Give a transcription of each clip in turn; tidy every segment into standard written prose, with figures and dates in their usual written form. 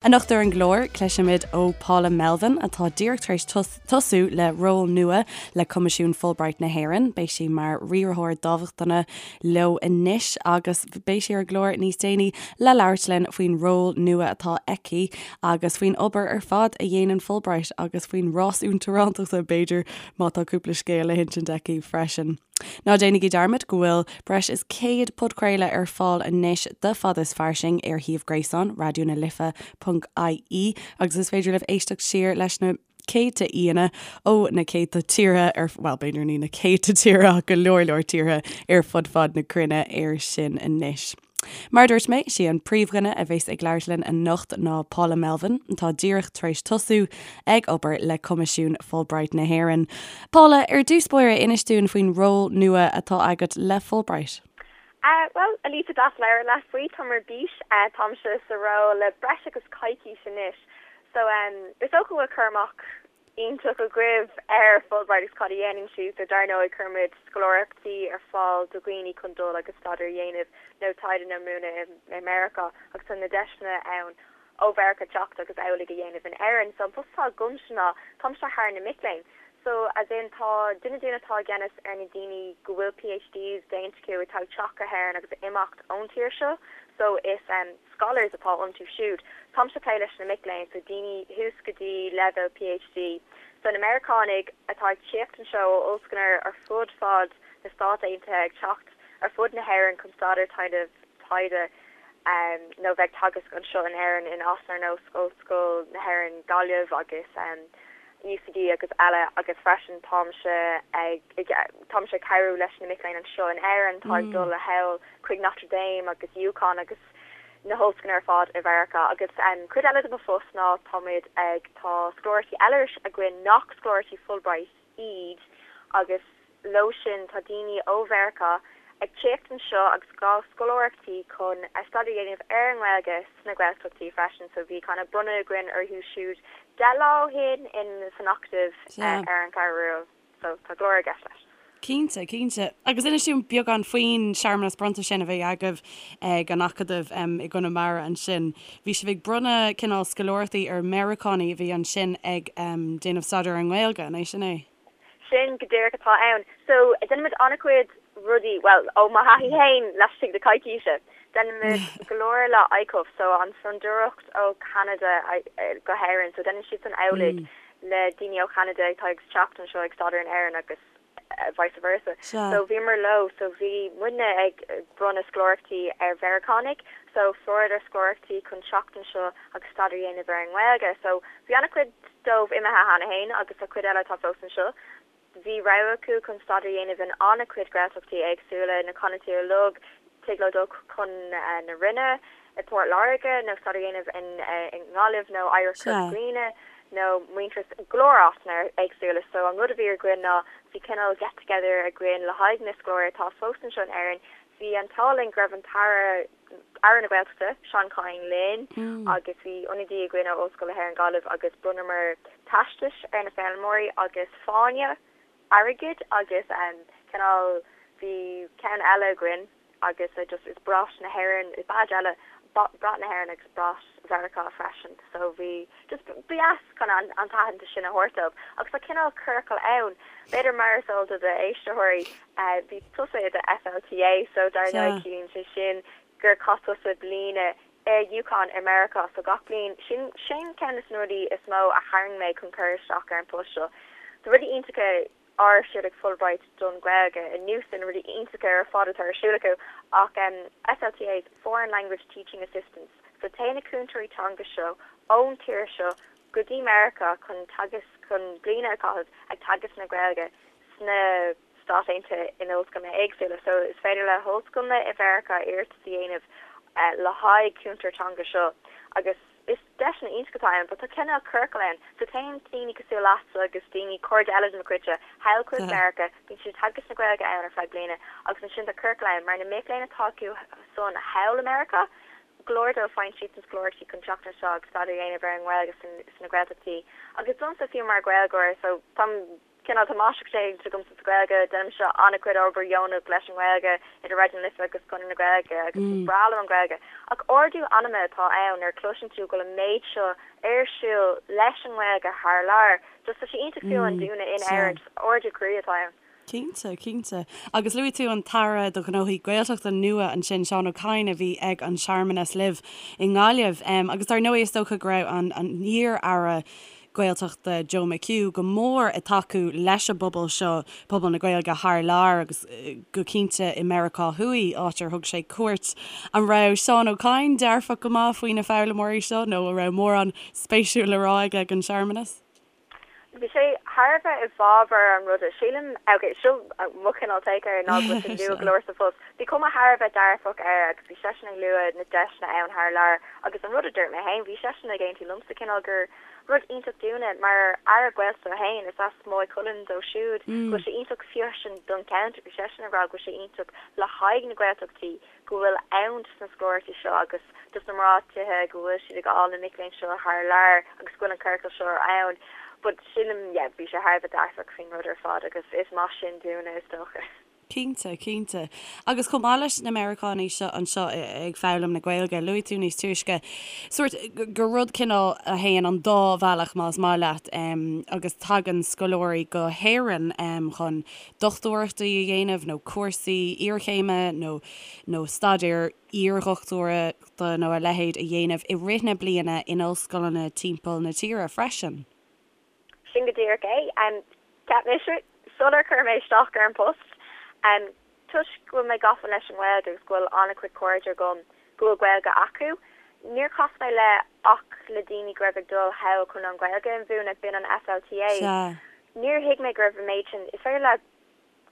Anocht ar an gclár, cloisfimid ó Paula Melvin, atá díreach tar éis tosú le ról nua le Coimisiún Fulbright na hÉireann. Beidh sí mar riarthóir dámhachtana leo anois agus beidh sí ar an gclár níos déanaí le labhairt linn faoin ról nua atá aici agus faoin obair ar fad a dhéanann Fulbright agus faoin rás uachtarántachta, b'fhéidir, má tá cúpla scéal le hinsint aici freisin. Ná déanaigí dearmad go bhfuil breis is 100 podchraoladh ar fáil anois de Fada is Fairsing ar shuíomh gréasáin Raidió na Life ponc ie agus is féidir libh éisteacht siar leis na céadta aíonna ó na céadta tíortha ar, bhuel b'fhéidir ní na céadta tíortha ach go leor leor tíortha ar fud fad na cruinne air sin anois. Mar a dúirt mé, sí an príomhdhuine a bheas ag labhairt linn anocht ná Paula Melvin, atá díreach tar éis tosú ag obair le Coimisiún Fulbright na hÉireann. Paula, ar dtús báire, inis dúinn faoin ról nua atá agat le Fulbright. Bhuel, a Lisa, deas labhairt leat faoi. Táim ar bís. Táimse sa ról le breis agus coicís anois. So, is dócha go bhfuil cur amach iontach agaibh ar Fulbright agus cad a dhéanann siad. So dar ndóigh cuirimid scoláireachtaí ar fáil do dhaoine chun dul agus staidéar a dhéanamh nó taighde nó múineadh i Meiriceá agus tá na deiseanna ann ó Mheiriceá teacht agus amhlaidh a dhéanamh in Éirinn. So an post atá agamsa ná táimse thar na mic léinn. So as in tá duine dúinn atá i gceannas ar na daoine go bhfuil PhDs déanta acu atá ag teacht go hÉirinn agus ag imeacht ón tír seo. So is scholars atá iontu siúd. Táimse ag plé leis na mic léinn, so daoine thuas go dtí leibhéal PhD. So na Meiriceánaigh atá ag tíocht anseo ó ollscoileanna ar fud fad na Stát Aontaithe ag teacht ar fud na hÉireann chun staidéar déanamh taighde nó bheith ag teagasc anseo in Éirinn in áiteanna ar nós Ollscoil na hÉireann Gaillimh agus UCD agus eile agus freisin táimse ag táimse ag cabhrú leis na mic léinn anseo in Éirinn atá ag dul thall chuig Notre Dame agus UConn agus na hollscoileanna ar fad i Mheiriceá. Agus cuid eile de mo phost ná táimid ag, tá scoláireachtaí eile againn nach scoláireachtaí Fulbright iad agus leo sin tá daoine ó Mheiriceá ag tíocht anseo agus ag fáil scoláireachtaí chun staidéar a dhéanamh ar an nGaeilge sna Gaeltachtaí freisin. So bhí kind of bronnadh againn orthu siúd 10 lá ó shin in san Acadamh ar an Cheathrú Rua. So tá go leor i gceist leis. Cinnte, cinnte. Agus inis dúinn beagán faoin searmanas bronnta sin a bhí agaibh ag an Acadamh i gConamara ansin. Bhí sibh ag bronnadh cineál scoláireachtaí ar Mheiriceánaigh a bhí ansin ag déanamh staidéar ar an nGaeilge, an é sin é? Sin go díreach atá ann. So, déanaimid an-chuid rudaí, bhuel, ó mo thaithí féin laistigh de coicíse, déanaimid go leor le ICUF, so an Fondúireacht ó Cheanada go hÉirinn, so déanann siadsan amhlaidh le daoine ó Cheanada atá ag teacht anseo ag staidéar in Éirinn agus vice versa. So bhíomar leo, so bhí muidne ag bronnadh scoláireachtaí ar Mheiriceánaigh, so fuaireadar scoláireachtaí chun teacht anseo agus staidéar a dhéanamh ar an nGaeilge. So bhí an-chuid dóibh imithe cheana féin agus tá cuid eile atá fós anseo. Bhí rogha acu chun staidéar a dhéanamh in an-chuid Gaeltachtaí éagsúla, na canúintí uilig, tig leo dul chun na Rinne i bPort Láirge nó staidéar a dhéanamh i nGaillimh nó Oidhreacht Chorca Dhuibhne nó Muintearas, go leor áiteanna éagsúla. So an rud a bhí againn ná bhí cineál get together againn le haghaidh na scoláirí atá fós anseo in Éirinn. Bhí an t-ádh linn go raibh an tAire, Aire na Gaeltachta, Seán Kyne linn agus bhí ionadaí againn ó Ollscoil na hÉireann Gaillimh agus bhronnamar teastais ar na foghlaimeoirí agus fáinne airgid agus cineál bhí ceann eile againn agus just is brat na hÉireann, badge eile, brat na hÉireann agus brat Mheiriceá freisin so bhí just ba dheas chun an t-aitheantas sin a thabhairt dóibh agus tá cineál ciorcal ann, b'fhéidir mar is eol do d'éisteoirí Bhí tusa i do FLTA so dar ndóigh ciallaíonn sé sin gur chaith tusa bliain i UConn i Meiriceá so gach bliain sin sin ceann de na rudaí is mó a tharraing mé chun cur isteach ar an post seo. Tá rudaí iontacha ar siúl ag Fulbright don Ghaeilge anuas ar na rudaí iontacha ar fad atá ar siúl acu ach FLTAs, Foreign Language Teaching Assistants, so téann na cúntóirí teanga seo ón tír seo go dtí Meiriceá chun teagasc chun bliain a chaitheamh ag teagasc na Gaeilge sna Stáit Aontaithe in ollscoileanna éagsúla. So is féidir le hollscoileanna i Mheiriceá iarratas a dhéanamh le haghaidh cúntóir teanga seo agus is deiseanna iontach atá ann but tá cineál ciorcal ann. So téann daoine cosúil leatsa agus daoine, cairde eile de mo chuidse, thall chuig Meiriceá, bíonn siad ag teagasc na Gaeilge ann ar feadh bliana agus ansin tá ciorcal ann mar na mic léinn atá acu san thall i Meiriceá, go leor dóibh faigheann siadsan scoláireachtaí chun teacht anseo agus staidéar a dhéanamh ar an nGaeilge sna Gaeltachtaí agus domsa fiú mar Ghaeilgeoir so táim. Cineál tá máistreacht déanta agamsa sa Ghaeilge, déanaimse an-chuid obair dheonach leis an nGaeilge idir Raidió na Life agus Conradh na Gaeilge agus is breá liom an Ghaeilge. Ach ardú anama atá ann nuair a chloiseann tú go bhfuil an méid seo ar siúl leis an nGaeilge thar lear. Just tá sé iontach fiú amháin dúinne in Éirinn, just ardú croí atá ann. Cinnte, cinnte. Agus luaigh tú an tAire do Ghnóthaí Gaeltachta nua ansin, Seán Ó Cadhain, a bhí ag an searmanas libh i nGaillimh. Agus dar ndóigh is dócha go raibh an t-iar-aire Gaeltachta Joe McHugh go mór ag tacú leis an bpobal seo, pobal na Gaeilge thar lear agus go cinnte i Meiriceá Thuaidh, áit ar thug sé cuairt. An raibh Seán Ó Cadhain dearfach go maith faoi na foghlaimeoirí seo nó an raibh mórán spéisiúil le rá aige ag an searmanas? Bhí sé thar a bheith i bhfabhar an ruda. Sílim, ok, seo mo chineál take air ná go bhfuil sé nua go leor sa phost. Bhí cuma thar a bheith dearfach air agus bhí seisean ag lua na deiseanna ann thar lear agus an rud a dúirt mé féin, bhí seisean ag aontú liomsa cineál gur rud iontach dúinne mar Aire Gaeltachta féin, is as Maigh Cuilinn dó siúd, go bhfuil sé iontach freisin don cheantar, bhí seisean ag rá go bhfuil sé iontach le haghaidh na Gaeltachtaí go bhfuil ann dos na scoláireachtaí seo agus dos na mná tithe go bhfuil siad ag fháil na mic léinn seo thar lear agus go bhfuil an curaclam seo ann. But sílim, yeah, bhí sé thar a bheith dearfach faoin rud ar fad agus is maith sin dúinne is dócha. Cinnte, cinnte. Agus chomh maith leis na Meiriceánaigh seo anseo ag foghlaim na Gaeilge, luaigh tú níos túisce sórt gur rud cineál a théann an dá bhealach más maith leat agus tagann scoláirí go hÉirinn chun dochtúireachtaí a dhéanamh nó cúrsaí iarchéime nó nó staidéar iardhochtúireachta nó a leithéid a dhéanamh i rith na bliana in ollscoileanna timpeall na tíre freisin. Sin go díreach é. Cheap mise, sular chuir mé isteach ar an bpost, toisc go bhfuil mé gafa leis an nGaeilge agus go bhfuil an-chuid cairde agam go bhfuil Gaeilge acu, níor chas mé le ach le daoine go raibh ag dul thall chun an Ghaeilge a mhúineadh, b'in an FLTA. Sea. Níor thuig mé go raibh an méid sin, is féidir leat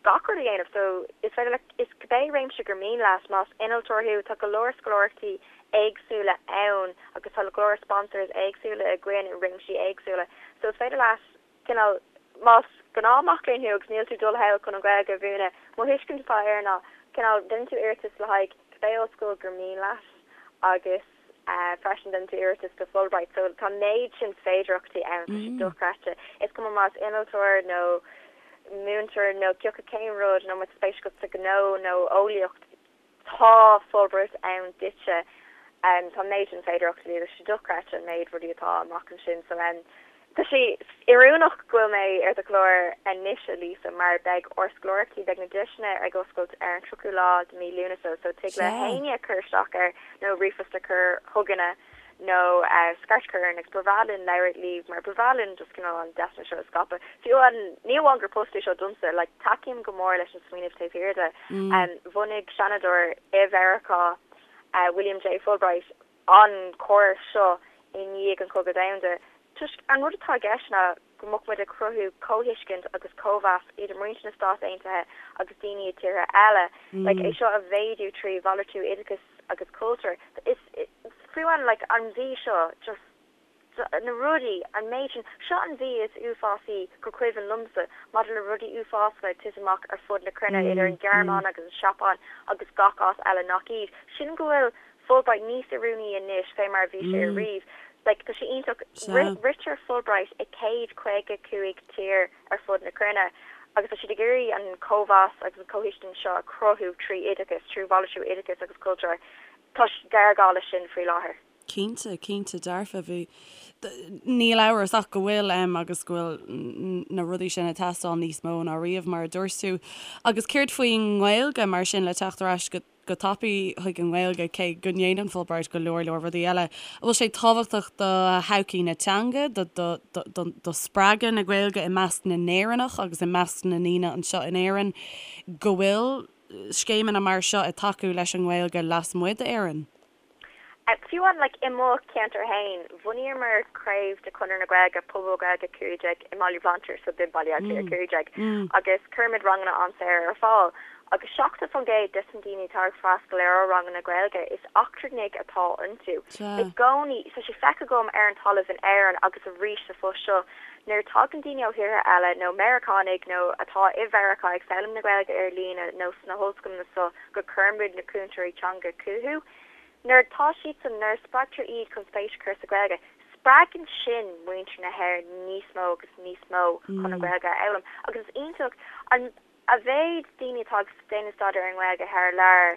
gach rud a dhéanamh so is féidir leat, is cibé réimse gur mian leat, más innealtóir thú, tá go leor scoláireachtaí éagsúla ann agus tá go leor sponsors éagsúla againn i réimsí éagsúla so is féidir leat cineál, más gnáth mac léinn thú agus níl tú ag dul thall chun an Ghaeilge a mhúineadh, mo thuiscint atá air ná cineál déanann tú iarratas le haghaidh cibé ollscoil gur mian leat agus freisin déanann tú iarratas do Fulbright so tá an méid sin féidearthachtaí ann, tá sé dochreidte. Is cuma más innealtóir nó múinteoir nó cioca cén rud nó má tá spéis agat sa ghnó nó eolaíocht, Tá Fulbright ann duitse. Tá an méid sin féidearthachtaí agus tá sé dochreidte an méid rudaí atá amach ansin. So tá sé oiriúnach go bhfuil mé ar do chlár anois, a Lisa, mar beidh ár scoláireachtaí, beidh na deiseanna ag oscailt ar an 30ú lá de mí Lúnasa so tig le héinne cur isteach air nó ríomhphost a chur chugainne. nó scairt a chur orainn agus ba bhreá linn labhairt libh mar ba bhreá linn just cineál an deiseanna seo a scaipeadh. Fiú amháin, ní amháin gur post é seo domsa, like tacaím go mór leis an smaoineamh taobh thiar de. Bhunaigh seanadóir i Mheiriceá, William J. Fulbright, an córas seo i ndiaidh an Chogadh Domhanda toisc an rud atá i gceist ná go mbeadh muid ag cruthú comhthuiscint agus cóimheas idir muintir na Stát Aontaithe agus daoine i tíortha eile. Like é seo a mhéadú trí mhalartú oideachais agus cultúir. Is fiú amháin like an mhí seo just na rudaí, an méid sin, seo an mhí is uafásaí gur cuimhin liomsa maidir le rudaí uafásacha ag titim amach ar fud na cruinne idir an Ghearmáin agus an Seapáin agus gach áit eile nach iad. Sílim go bhfuil Fulbright níos oiriúnaí anois fé mar a bhí sé ariamh. Like, tá sé iontach. Ritear Fulbright i 155 tír ar fud na cruinne agus tá siad ag iarraidh an cóimheas agus an comhthuiscint seo a chruthú trí oideachas, trí mhalartú oideachais agus cultúir. Tá géarghá leis sin faoi láthair. Cinnte, cinnte dearfa. Bhí, níl amhras ach go bhfuil agus go bhfuil na rudaí sin ag teastáil níos mó ná riamh, mar a dúirt tú. Agus céard faoin nGaeilge mar sin, le teacht ar ais go go tapaidh chuig an nGaeilge, cé go ndéanann Fulbright go leor leor rudaí eile. An bhfuil sé tábhachtach do thodhchaí na teanga, do, do, do, do, do spreagadh na Gaeilge i measc na nÉireannach agus i measc na ndaoine anseo in Éirinn go bhfuil scéimeanna mar seo ag tacú leis an nGaeilge lasmuigh d'Éirinn? Fiú amháin, like, i mo cheantar féin, bhunaíomar craobh de Chonradh na Gaeilge, Pobal Gaeilge 15 i mBaile Bhlainséir, so b'in Baile Átha Cliath 15, agus cuirimid ranganna an-saor ar fáil. Agus 70% des na daoine atá ag freastal ar ár ranganna Gaeilge, is eachtrannaigh atá iontu. I gcónaí, tá sé feicthe agam ar an talamh in Éirinn agus arís sa phost seo, nuair a tagann daoine ó thíortha eile, nó Meiriceánaigh nó atá i Mheiriceá ag foghlaim na Gaeilge ar líne nó sna hollscoileanna so, go gcuirimid na cúntóirí teanga chucu. Nuair atá siadsan, nuair a spreagtar iad chun spéis a chur sa Ghaeilge, Spreagann sin muintir na hÉireann níos mó agus níos mó chun an Ghaeilge a fhoghlaim agus is iontach an a mhéid daoine atá ag déanamh staidéar ar an nGaeilge thar lear.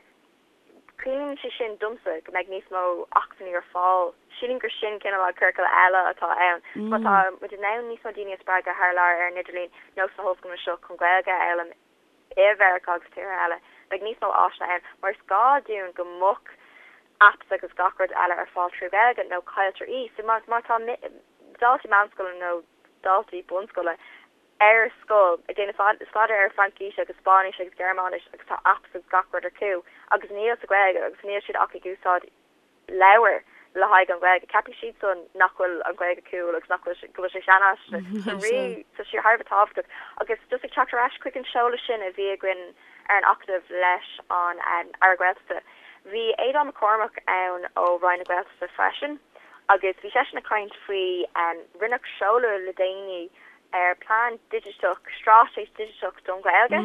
Ciallaíonn sé sin domsa go mbeidh níos mó acmhainní ar fáil. Sílim gur sin cineál an ciorcal eile atá ann. Má tá muid in ann níos mó daoine a spreagadh thar lear ar an idirlíon nó sna hollscoileanna seo chun Gaeilge a fhoghlaim i Mheiriceá agus tíortha eile, beidh níos mó áiseanna ann mar is gá dúinn go mbeadh apps agus gach rud eile ar fáil trí Ghaeilge nó cailltear í. So má tá daltaí meánscoile nó daltaí bunscoile ar scoil ag déanamh staidéar ar Fraincis agus Spáinnis agus Gearmáinis agus tá apps agus gach rud acu agus níl sa Ghaeilge agus níl siad ach ag úsáid leabhair le haghaidh an Ghaeilge. Ceapfaidh siadsan nach bhfuil an Ghaeilge cool agus nach bhfuil go bhfuil sé seanfhaiseanta. So really tá sé thar a bheith tábhachtach. Agus just ag teacht ar ais chuig an seoladh sin a bhí againn ar an Acadamh leis an Aire Gaeltachta, bhí Aodhán Mac Cormaic ann ó Roinn na Gaeltachta freisin agus bhí seisean ag caint faoi rinneadh seoladh le déanaí ar plean digiteach, straitéis digiteach don Ghaeilge.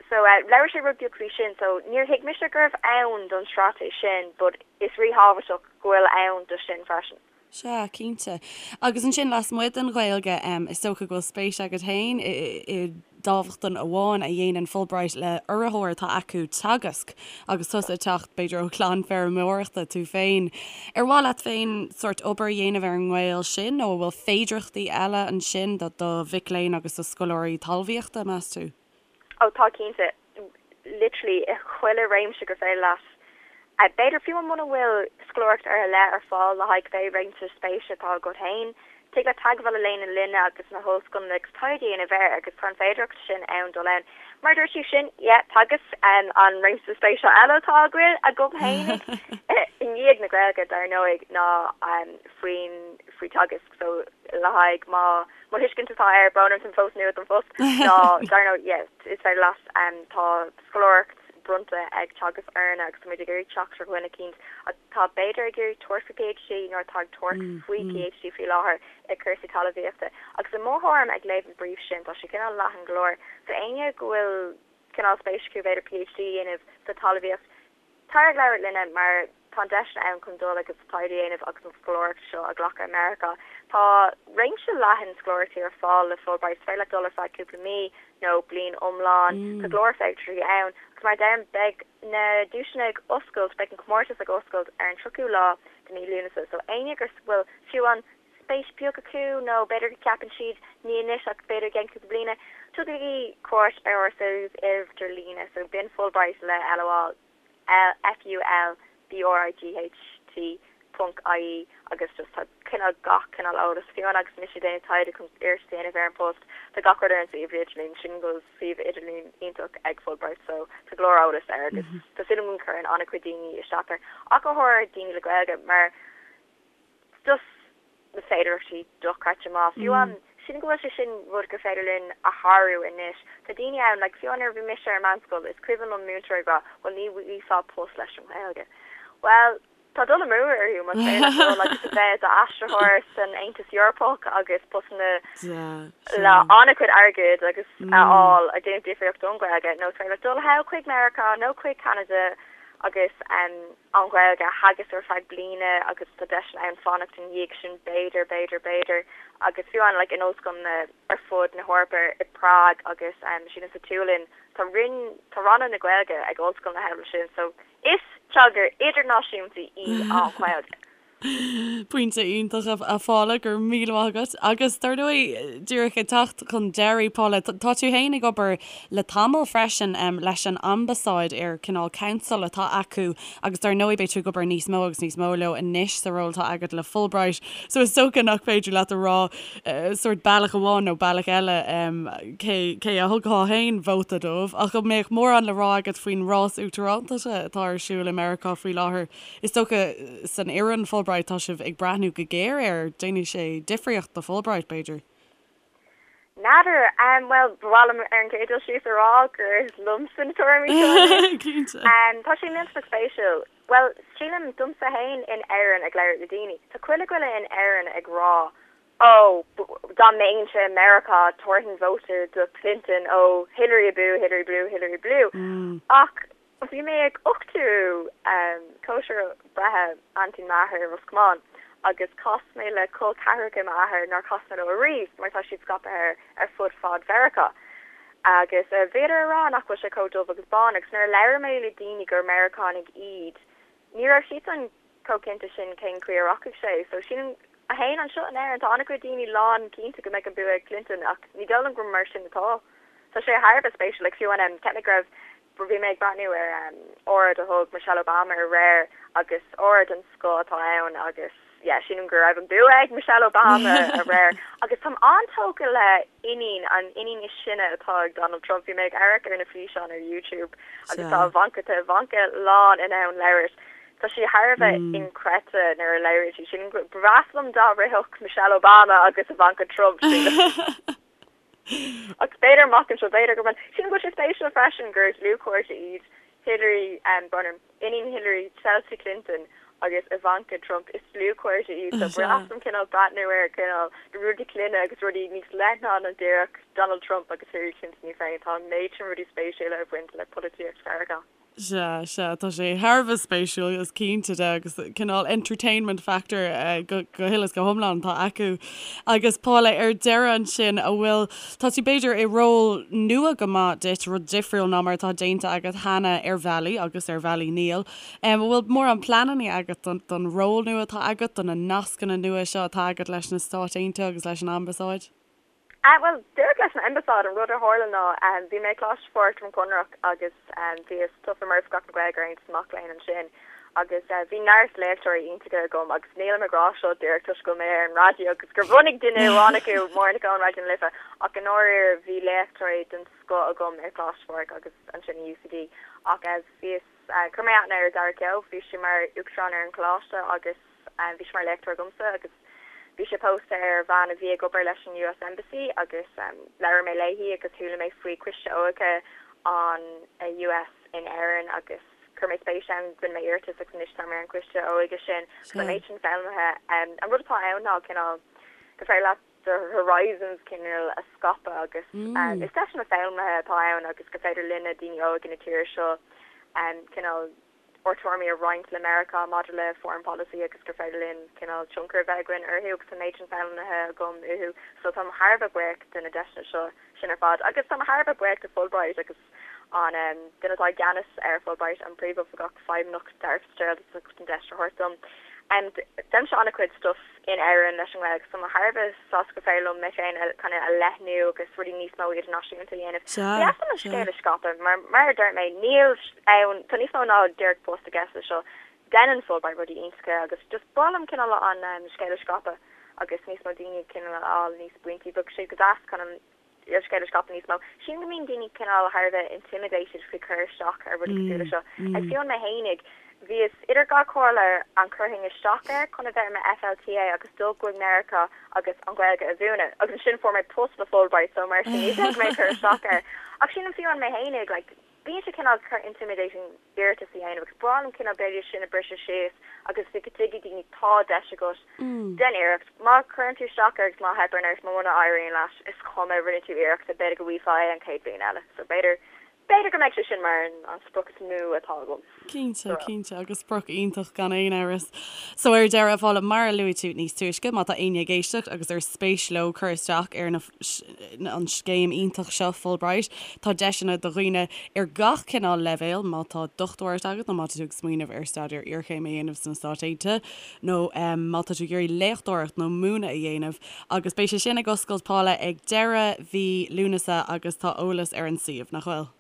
So labhair sé rud beag faoi sin. So níor thuig mise go raibh ann don straitéis sin but is ríthábhachtach go bhfuil ann do sin freisin. Sea, cinnte. Agus ansin lasmuigh den Ghaeilge, is dócha go bhfuil spéis agat féin i dámhachtain amháin a dhéanann Fulbright le urraitheoir atá acu, Teagasc, agus tusa ag teacht, b'fhéidir, ó chlann feirmeoireachta tú féin. Ar mhaith leat féin sórt obair a dhéanamh ar an ngaol sin nó an bhfuil féidearthachtaí eile ansin do do mhic léinn agus do scoláirí talmhaíochta, meas tú? Ó tá cinnte. Literally i chuile réimse gur féidir leat. B'fhéidir fiú muna bhfuil scoláireacht ar leith ar fáil le haghaidh cibé réimse spéise atá agat féin, tig leat teagmháil a dhéanamh linne agus na hollscoileanna agus taighde a dhéanamh air agus tá an féidearthacht sin ann dul ann. Mar a dúirt tú sin, yeah, Teagasc an réimse spéise eile atá agam féinig i ndiaidh na Gaeilge dar ndóigh ná faoin faoi Teagasc so le haghaidh má mo thuiscint atá air, brón orm táim fós nua don phost ná dar ndóigh yeah is féidir leat tá scoláireacht bronnta ag Teagasc orainne agus táimid ag iarraidh teacht ar dhuine eicínt atá b'fhéidir ag iarraidh tabhairt faoi PhD nó atá ag tabhairt faoi PhD faoi láthair i cúrsaí talmhaíochta. Agus i mo thuairim ag léamh an brief sin tá sé cineál leathan go leor so éinne go bhfuil cineál spéis acu b'fhéidir PhD a dhéanamh sa talmhaíocht Tar ag labhairt linne mar tá an deis ann chun dul agus taighde a dhéanamh agus an scoláireacht seo a ghlacadh i Meiriceá. Tá réimse leathan scoláireachtaí ar fáil le Fulbright. Is féidir leat dul ar feadh cúpla mí nó bliain iomlán. Tá go leor féidearthachtaí ann agus mar a deirim beidh na duaiseanna ag oscailt, beidh an comórtas ag oscailt ar an 30ú lá de mí Lúnasa. So éinne go bhfuil fiú an spéis beag acu nó b'fhéidir go gceapann siad ní anois ach b'fhéidir i gceann cúpla bliana, tugaigí cuairt ar ár suíomh idirlíne so b'in Fulbright le L a fháil, F U L B R I G H T ponc IE agus just tá cineál gach cineál eolas fiú amháin agus mise ag déanamh taighde chun iarratas a dhéanamh ar an post tá gach rud ar an suíomh idirlín sin go bhfuil suíomh idirlín iontach ag Fulbright so tá go leor eolas air agus tá súil agam go gcuireann an-chuid daoine isteach air ach go háirithe daoine le Gaeilge mar just na féidearthachtaí dochreidte maith. Fiú amháin, sílim go bhfuil sé sin rud gur féidir linn a shárú anois. Tá daoine ann, like fiú amháin nuair a bhí mise ar meánscoil, is cuimhin liom múinteoir ag rá, bhuel ní bhfaighfeá post leis an nGaeilge. Bhuel, tá dul amú orthu más féidir leat dul agus a bheith i d'aistritheoir san Aontas Eorpach agus postanna le an-chuid airgid agus a fháil ag déanamh difríocht don Ghaeilge nó is féidir leat dul thall chuig Meiriceá nó chuig Ceanada agus an Ghaeilge a theagasc ar feadh bliana agus tá deiseanna ann fanacht ina dhiaidh sin b'fhéidir, b'fhéidir, b'fhéidir agus fiú amháin like in ollscoileanna ar fud na hEorpa i Prague agus sílim sa tSualainn tá roinn, tá ranna na Gaeilge ag ollscoileanna thall ansin so is teanga idirnáisiúnta í an Ghaeilge. Pointe iontach a Phaula, go raibh míle maith agat. Agus dar ndóigh, díreach ag teacht chun deiridh, Paula, tá tú féin ag obair le tamall freisin leis an Ambasáid ar cineál council atá acu agus dar ndóigh beidh tú ag obair níos mó agus níos mó leo anois sa ról atá agat le Fulbright. So is dócha nach féidir leat a rá sórt bealach amháin nó bealach eile cé cé a thugfá féin vóta dóibh ach an mbeadh mórán le rá agat faoin rás uachtaránachta atá ar siúl i Meiriceá faoi láthair? Is dócha, san fhoireann Fulbright, tá sibh ag breathnú go géar air. Déanfaidh sé difríocht do Fulbright, b'fhéidir? N'fheadar. Bhuel, ba mhaith liom ar an gcéad dul síos a rá gur liomsa na tuairimí seo anois. Cinnte. Tá sé millteanach spéisiúil. Bhuel, sílim, domsa féin in Éirinn ag labhairt le daoine, tá chuile dhuine in Éirinn ag rá, Ó, dá mbeinnse i Meiriceá, tabharfainn vóta do Clinton, ó, Hillary abú, Hillary blue, Hillary blue. Ach Bhí mé ag uchtú cóisir breithe aintín m'athar i Ros Comáin. Agus chas mé le col ceathracha m'athar nár chas mé leo ariamh mar tá siad scaipthe ar fud fad Mheiriceá. Agus bhíodar a rá nach bhfuil sé chomh dubh agus bán agus nuair a labhair mé le daoine gur Meiriceánaigh iad, ní raibh siadsan chomh cinnte sin cén chaoi a rachaidh sé. So sílim, a haon anseo in Éirinn, tá an-chuid daoine lán cinnte go mbeidh an bua ag Clinton ach ní dóigh liom gur mar sin atá. Tá sé thar a bheith spéisiúil, like fiú an, cheap mé go raibh, bhí mé ag breathnú ar óráid a thug Michelle Obama aréir agus óráid den scoth atá ann agus yeah sílim go raibh an bua ag Michelle Obama aréir agus táim an-tógtha le iníon, an iníon is sine atá ag Donald Trump, bhí mé ag amharc ar na físeáin ar YouTube agus tá Ivanka, tá Ivanka lán in ann labhairt. Tá sí thar a bheith inchreidte nuair a labhraíonn sí. Sílim go, ba bhreá liom dá rithfeadh Michelle Obama agus Ivanka Trump, sílim. Ach b'fhéidir amach anseo, b'fhéidir go mbeidh. Sílim go bhfuil sé spéisiúil freisin gur dlúthchairde iad Hillary, brón orm, iníon Hillary, Chelsea Clinton agus Ivanka Trump. Is dlúthchairde iad so ba bhreá liom cineál breathnú ar cineál na rudaí clainne agus rudaí níos leithne ná díreach Donald Trump agus Hillary Clinton í féin. Tá an méid sin rudaí spéisiúla ag baint le polaitíocht Mheiriceá. Sea, sea, tá sé thar a bheith spéisiúil, is cinnte de, agus cineál entertainment factor go huile is go hiomlán atá acu. Agus Paula, ar deireadh ansin, an bhfuil, tá tú b'fhéidir i ról nua go maith duit, rud difriúil ná mar atá déanta agat cheana ar bhealaí agus ar bhealaí níl. An bhfuil mórán pleananna agat don ról nua atá agat, do na nascanna nua seo atá agat leis na Stáit Aontaithe agus leis an Ambasáid? Bhuel, díreach leis an Ambasáid, an rud a tharla ná bhí mé ag Coláiste Phádraig Droim Conrach agus bhíos tofa mar Oifigeach na Gaeilge ar Aontas na Mac Léinn ansin agus bhí neart léachtóirí iontacha agam agus nílim ag rá seo díreach toisc go bhfuil mé ar an raidió agus gur bhunaigh duine amháin acu, Máire Nic Eoin, Raidió na Life, ach i ndáiríre bhí léachtóirí den scoth agam ar Choláiste Phádraig agus ansin i UCD ach bhíos, chuir mé aithne ar Dara Keogh, bhí sé mar Uachtarán ar an choláiste agus. Bhí sé mar léachtóir agamsa agus bhí sé pósta ar bhean a bhí ag obair leis an US Embassy agus labhair mé léi agus chuala mé faoi Coiste Óige an US in Éirinn agus chuir mé spéis ann, rinne mé iarratas agus anois táim ar an Choiste Óige sin agus an méid sin foghlamtha. An rud atá ann ná cineál gur féidir leat do horizons cineál a scaipeadh agus is deiseanna foghlamtha atá ann agus gur féidir linne daoine óga na tíre seo cineál ár dtuairimí a roinnt le Meiriceá maidir le foreign policy agus gur féidir linn cineál tionchar a bheith againn orthu agus tá an méid sin foghlamtha agam uathu so táim thar a bheith buíoch de na deiseanna seo sin ar fad agus táim thar a bheith buíoch de Fulbright agus an duine atá i gceannas ar Fulbright, an Príomhoifigeach Feidhmeannach Darragh Fitzgerald as ucht an deis a thabhairt dom. Déanaimse an-chuid stuff in Éirinn leis an nGaeilge so tá mé thar a bheith sásta gur féidir liom mé féin a kind of a leathnú agus rudaí níos mó idirnáisiúnta a dhéanamh. Ba dheas liom an scéal a scaipeadh mar mar a dúirt mé níl ann tá níos mó ná díreach post i gceist leis seo. Déanann Fulbright rudaí iontacha agus just ba mhaith liom cineál an scéal a scaipeadh agus níos mó daoine cineál a fháil níos baintí. Bheadh sé go deas kind of an scéal a scaipeadh níos mó. Sílim go mbíonn daoine cineál thar a bheith intimidated faoi cur isteach ar rudaí cosúil le seo. Like fiú mé fhéinig, bhíos idir dhá chomhairle an gcuirfinn isteach air chun a bheith i mo FLTA agus dul go Meiriceá agus an Ghaeilge a mhúineadh agus ansin fuair mé post le Fulbright so mar sin ní bheadh mé ag cur isteach air. Ach sílim fiú mé fhéinig like bíonn sé cineál intimidating iarratas a dhéanamh agus ba mhaith liom cineál b'fhéidir sin a briseadh síos agus go dtuigfidh daoine tá deis agat, déan iarracht. Má chuireann tú isteach air agus má theipeann ort, muna éiríonn leat, is cuma, rinne tú iarracht, b'fhéidir go bhfaighfeá é an chéad bhliain eile. So b'fhéidir, b'fhéidir go mbeidh sé sin mar an sprioc is mó atá agam. Cinnte, cinnte, agus sprioc iontach gan aon amhras. So ar deireadh, a Phaula, mar a luaigh tú níos túisce, má tá éinne ag éisteacht agus ar spéis leo cur isteach ar na, an scéim iontach seo, Fulbright, tá deiseanna do dhaoine ar gach cineál leibhéal, má tá dochtúireacht agat nó má tá tú ag smaoineamh ar staidéar iarchéime a dhéanamh sna Stáit Aontaithe nó má tá tú ag iarraidh léachtóireacht nó múineadh a dhéanamh. Agus beidh sé sin ag oscailt, Paula, ag deireadh mhí Lúnasa agus tá eolas ar an suíomh, nach bhfuil?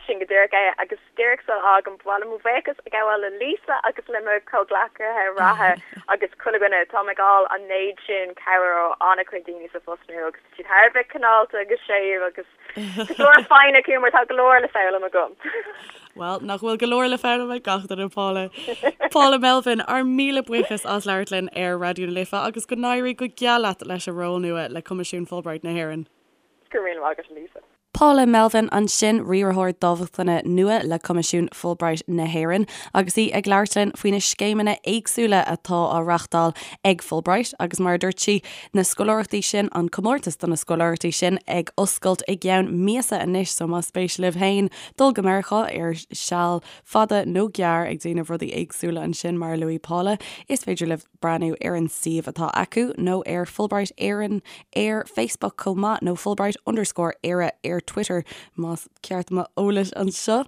Sin go díreach é, agus díreach sula bhfágaim, ba mhaith liom mo bhuíochas a ghabháil le Lisa agus le mo chomhghleacaithe reatha agus chuile dhuine. Táim ag fháil an méid sin cabhair ó an-chuid daoine sa phost nua agus tá siad thar a bheith cineálta agus séimh agus tá go leor foighne acu mar tá go leor le foghlaim agam. Bhuel, nach bhfuil go leor le foghlaim ag gach duine, Paula. Paula Melvin, ár míle buíochas as labhairt linn ar Raidió na Life agus go n-éirí go geal leat leis an ról nua le Coimisiún Fulbright na hÉireann. Go raibh míle maith agat, a Lisa. Paula Melvin ansin, riarthóir dámhachtana nua le Coimisiún Fulbright na hÉireann, agus í ag labhairt linn faoi na scéimeanna éagsúla atá á reáchtáil ag Fulbright agus mar a dúirt sí, na scoláireachtaí sin, an comórtas do na scoláireachtaí sin ag oscailt i gceann míosa anois so más spéis libh féin dul go Meiriceá ar seal fada nó gearr ag déanamh rudaí éagsúla ansin mar a luaigh Paula, is féidir libh breathnú ar an suíomh atá acu nó ar Fulbright Éireann ar Facebook chomh maith nó Fulbright underscore Éire ar Twitter más ceart m'eolas anseo.